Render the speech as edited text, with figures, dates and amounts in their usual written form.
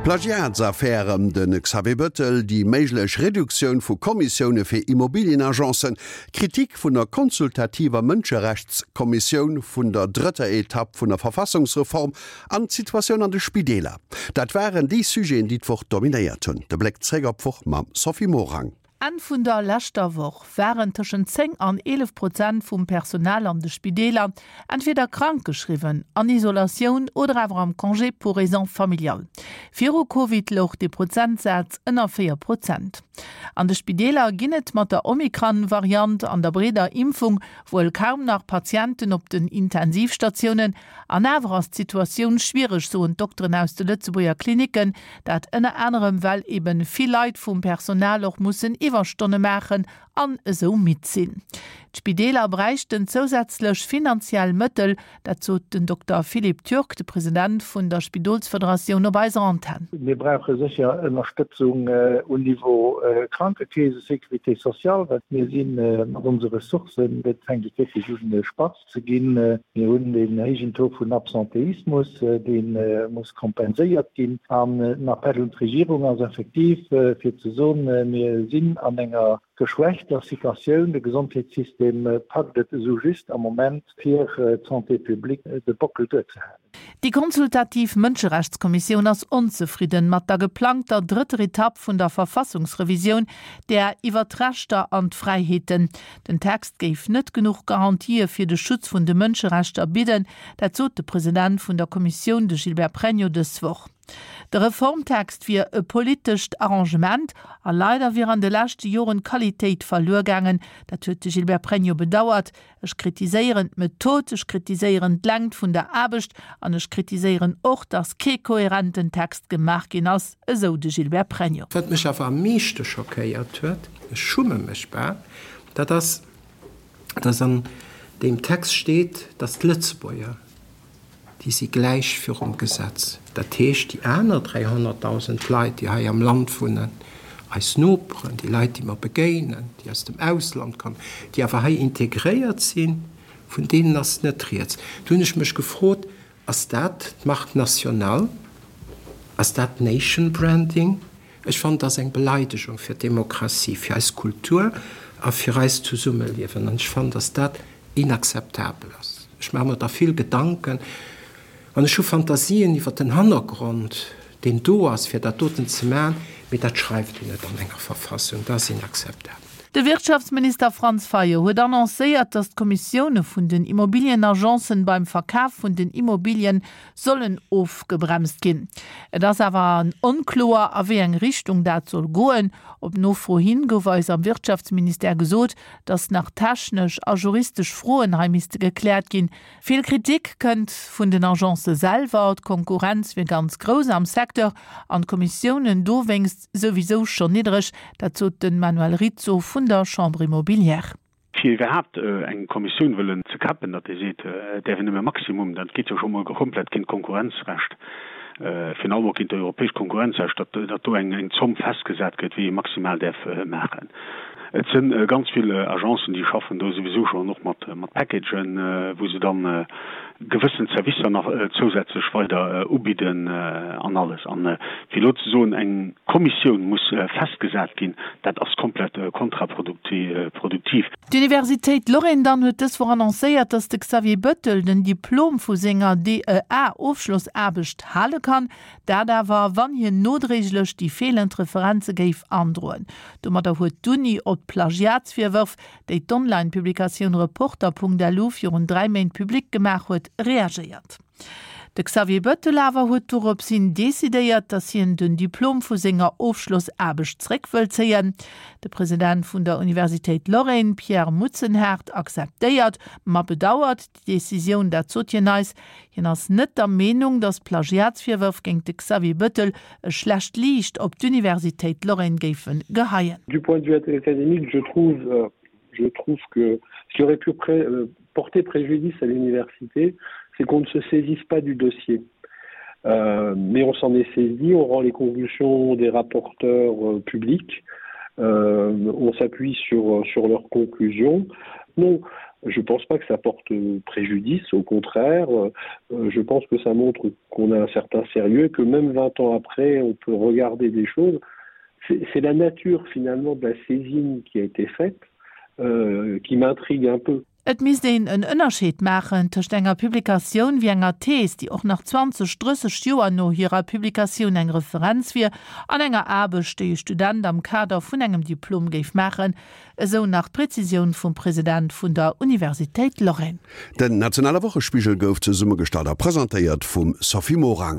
D'Plagiatsaffär ëm de Xavier Bëttel, déi méiglech Reduktioun vu Kommissioune fir Immobilienagencen, Kritik vun der consultativer Mënscherechtskommissioun, vun der drëtter Etapp vun der Verfassungsreform an d'Situatioun an de Spideeler, dat waren déi Sujeten, déi d'Woch dominéiert hunn. De Bléck zréck op d'Woch mam Sophie Morang. Enn vun der leschter Woch waren tëschent 10 an 11 Prozent vum Personal an de Spideeler entweder krank geschriwwen, an Isolatioun oder awer am Congé pour raisons familiales. Viru Covid louch dee Prozentsaz ënner 4 Prozent. An de Spideeler ginn et mat der Omikron-Variant an der breeder Impfung wuel kaum nach Patienten op den Intensivstatiounen, An awer ass d'Situatioun schwiereg, soen d'Dokteren aus de Lëtzebuerger Klinicken. Dat ënner anerem, well eben vill Leit vum Personal och mussen Iwwerstonne maachen an esou midd sinn. D'Spideeler bräichten zousätzlech finanziell Mëttel, dat sot den Dokter Philippe Turk, de President vun der Spidolsfederatioun op eiser Antenn. Mir brauche sécher Ënnerstëtzung um Niveau Krankekeese, Sécurité sociale, well mir si mat onse Ressourcen, et fänkt et wierklech un spatz ze ginn. Mir hunn deen héijen Taux vun Absentéismus, dee muss kompenséiert ginn. An den Appell un d'Regierung ass effektiv, fir ze soen, Mir sinn an enger geschwächter Situatioun, de Gesondheetssystem packt et esou just am Moment, fir d'Santé publique de Bockel duerzehalen. Déi consultativ Mënscherechtskommissioun ass onzefridden mat der geplangter drëtter Etapp vun der Verfassungsrevisioun, där iwwer d'Rechter an d'Fräiheeten. Den Text géif net genuch Garantië fir de Schutz vun de Mënscherechter bidden, dat sot de President vun der Kommissioun, de Gilbert Pregno, dës Woch. De Reformtext wier e politescht Arrangement a leider wier an de leschte Joren d'Qualitéit verluer gaangen, dat huet de Gilbert Pregno bedauert. Ech kritiséieren d'Method, ech kritiséieren d'Längt vun der Aarbecht an ech kritiséieren och, datt kee kohärenten Text gemaach ginn ass, esou de Gilbert Pregno. Wat mech awer am meeschte schockéiert huet, ech schumme mech bal, dat ass, dass an deem Text steet, dass d'Lëtzebuerger, déi si gläich virum Gesetz. Dat heescht, déi aner 300.000 Leit, déi hei am Land wunnen, eis Noperen, déi Leit, déi mer begéinen, déi aus dem Ausland kommen, déi awer hei integréiert sinn, vun deenen ass net rieds. Do hunn ech mech gefrot, Ass dat d'Marque nationale? Ass dat Nation Branding? Ech fannen, dat ass eng Beleidegung fir d'Demokratie, fir eis Kultur a fir eist Zesummeliewen. An ech fannen, dass dat inakzeptabel ass. Ech maache mer da vill Gedanken an ech hu Fantasien iwwer den Hannergrond, deen do ass, fir dat doten ze maachen, mee dat schreift een net an enger Verfassung. Dat ass inakzeptabel. De Wirtschaftsminister Franz Fayot huet annoncéiert, datt d'Kommissioune vun den Immobilienagencen beim Verkaf vun den Immobilien sollen ofgebremst ginn. Et ass awer onkloer, a wéi eng Richtung dat soll goen. Op Nofro hin gouf eis am Wirtschaftsministère gesot, datt nach technesch a juristesch Froen hei misste gekläert ginn. Vill Kritik kënnt vun den Agencë selwer, d'Konkurrenz wier ganz grouss am Secteur an d'Kommissiounen dowéinst souwisou schonn niddreg. Dat sot de Manuel Rizzo vun der Chambre immobilière. Fir iwwerhaapt eng Kommissioun wëllen ze kappen, datt ee seet, et däerf een nëmme maximum, dat geet jo scho mol komplett géint d'Konkurrenzrecht, virun allem och géint d'europäescht Konkurrenzrecht, datt datt do eng eng Zomm festgesat gëtt, wéi ee maximal däerf maachen. Et si ganz vill Agencen, déi schaffen do souwisou schonn och mat mat Packagen, wou se dann gewëssen Servicer nach zousätzlech weider ubidden an alles. An fir elo ze soen, eng Kommissioun muss festgesat ginn, dat ass komplett kontraproduktiv. D'Universitéit Lorraine dann huet dës Woch annoncéiert, datt de Xavier Bettel den Diplom vu senger DEA-Ofschlossaarbecht hale kann. Dat awer, wann hien nodréiglech déi feelend Referenze géif androen. Domadder huet d'Uni op d'Plagiatsvirwërf, déi d'Online-Publikatioun Reporter.lu virun 3 Méint public gemaach huet, reagéiert. De Xavier Bettel awer huet dorops hin decidéiert, datt hien den Diplom vu senger Ofschlossaarbecht zréck wëll zéien. De President vun der Universitéit Lorraine, Pierre Mutzenhardt, akzeptéiert, ma bedauert déi Decisioun. Dat sot hien eis. Hien ass net der Meenung, datt d'Plagiatsvirwërf géint de Xavier Bettel e schlecht Liicht op d'Universitéit Lorraine géife geheien. Du point de vue académique, je trouve, je trouve que ce qui aurait pu pré porter préjudice à l'université, c'est qu'on ne se saisisse pas du dossier. Euh, mais on s'en est saisi, on rend les conclusions des rapporteurs euh, publics, euh, on s'appuie sur, sur leurs conclusions. Non. Je pense pas que ça porte préjudice, au contraire, euh, je pense que ça montre qu'on a un certain sérieux, que même 20 ans après, on peut regarder des choses. C'est la nature finalement de la saisine qui a été faite euh, qui m'intrigue un peu. Et misst een en Ënnerscheed maachen tëscht enger Publikatioun wéi enger Thees, déi och nach 20, 30 Joer no hirer Publikatioun eng Referenz wier, an enger Aarbecht, déi e Student am Kader vun engem Diplom géif maachen, esou nach d'Prezisioun vum President vun der Universitéit Lorraine. Den nationale Wochespigel gouf zesummegestallt a presentéiert vum Sophie Morang.